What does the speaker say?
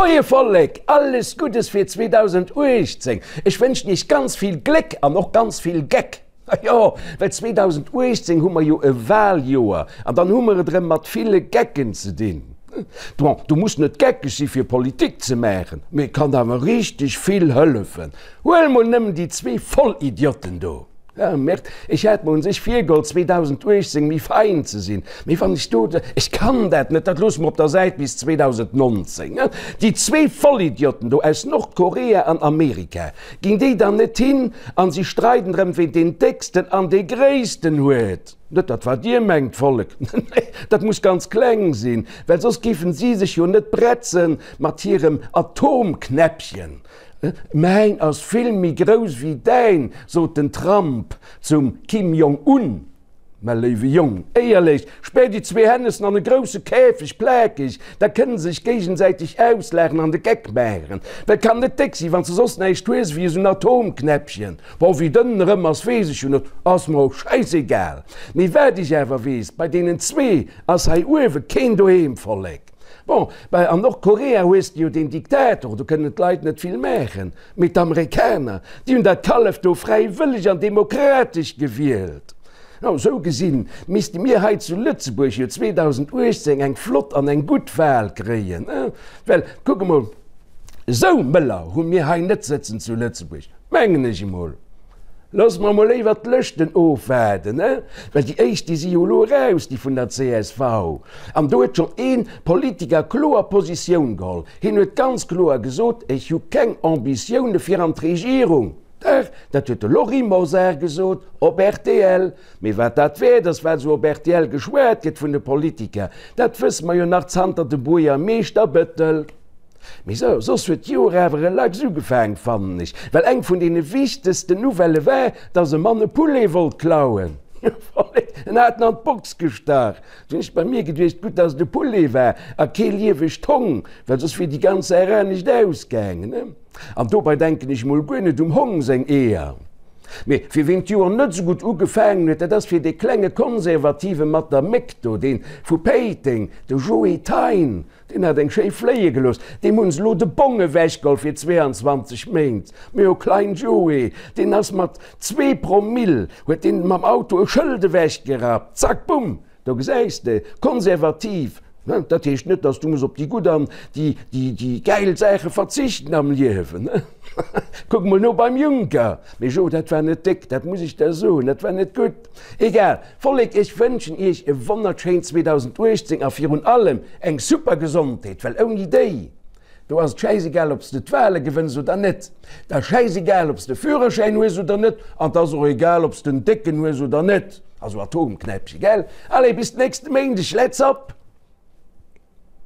Moie Vollek, alles Guddes fir 2018! Ech wënschen iech ganz vill Gléck an och ganz vill Geck. Jo, well 2018 hu mer jo e Waljoer an dann hu mer et erëm mat ville Gecken ze dinn. Bon, du muss net geckeg si fir Politik ze maachen, mee et kann awer richteg vill hëllefen. Huel mol nëmmen déi zwee Vollidiotten do. Ah merde, ech hat mer un sech virgeholl 2018 méi fein ze sinn, mee wann ech do, ech kann dat net, dat loosse mer op der Säit bis 2019. Déi zwee Vollidiotten do aus Nordkorea an Amerika, ginn déi dann net hin an si streiden drëm ween deen décksten an dee gréissten huet? Net dat wat dir mengt, Vollek, nee, dat muss ganz kleng sinn, well soss géifen si sech jo net bretzen mat hirem Atomknäppchen. Mäin ass vill méi grouss wéi däin, sot den Trump zum Kim Jong Un. Mä léiwe Jong, éierlech, spär déi zwee Hännessen an e grousse Käfeg, plakeg, da kënne se sech géigesäiteg auslaachen an de Geck maachen. Well kann net déck sinn, wann s de soss näischt hues ewéi esou en Atomknäppchen. Bon, wéi dënn en erëm ass, weess ech jo net, ass mer och schäissegal. Mee wat ech awer weess, bei deenen zwee ass hei uewe keen doheem, Vollek. Bon, bah an Nordkorea hues de jo deen Diktator, do kënnen d'Leit net vill maachen. Mee d'Amerikaner, déi hunn dat Kallef do fräiwëlleg an demokratesch gewielt. No, sou gesinn misste mir hei zu Lëtzebuerg jo 2018 eng flott an eng gutt Wahl kréien, well kuck emol, esou Mëller hu mir hei net sëtzen zu Lëtzebuerg, mengen ech emol. Loosse mer emol léiwer d'Lëschten ofwaarden, he? Well déi éischt, déi si jo elo eraus, déi vun der csv. An do huet schonn ee Politiker kloer Positioun geholl. Hien huet ganz kloer gesot, Ech hu keng Ambitioune fir an d'Regierung. Dach, dat huet de Lory Mosar gesot op rtl. Mee wat dat wäert ass, wat esou op rtl geschwat gëtt vun de Politiker, dat wësse mer jo nach zanter dem Buergermeeschter Bettel. Mee sou, soss huet d'Joer awer relax ugefaang, fannen ech, well eng vun deene wichtegsten Nouvellë war, dass e Mann e Poulet wollt klauen. En hat en an d'Box gestach. Du hunn ech bei mir geduecht, gutt, dass et e Poulet war a kee liewegt Hong, well soss wier déi ganz Saach anescht ausgaangen. An dobei denken ech mol guer net um Hong seng Eeër. Mee fir ween d'Joer net sou gutt ugefaangen huet, dat ass fir dee klenge Konservative mat der Méck do, dee vu Péiteng, de Joe Thein. Deen hat eng schéi fléie gelooss. Deem hunn se elo de Bong ewechgeholl fir 22 Méint. Mee o klein Joe, deen ass mat zwee Promill, huet deen mam Auto e Schëld ewechgerappt. Zack, bumm! Do gesäis de, konservativ, ne, dat heescht net, dass du muss op déi gutt an déi, déi, déi gäil Saache verzichten am Liewen, ne? Kuck mol no beim Juncker. Mee Jo, dat war net déck, dat muss ech der soen, dat war net gutt. Egal, Vollek, ech wënschen iech e wonnerschéint 2018 a virun allem eng super Gesondheet, well ouni déi do ass et schäisegal ob s de d'Wale gewënns oder net, et ass schäisegal ob s de Führerschäin hues oder net an et ass och egal ob s den décken hues oder net, also Atomknäppche, gell? Allez, bis nächste Méindeg, let's up!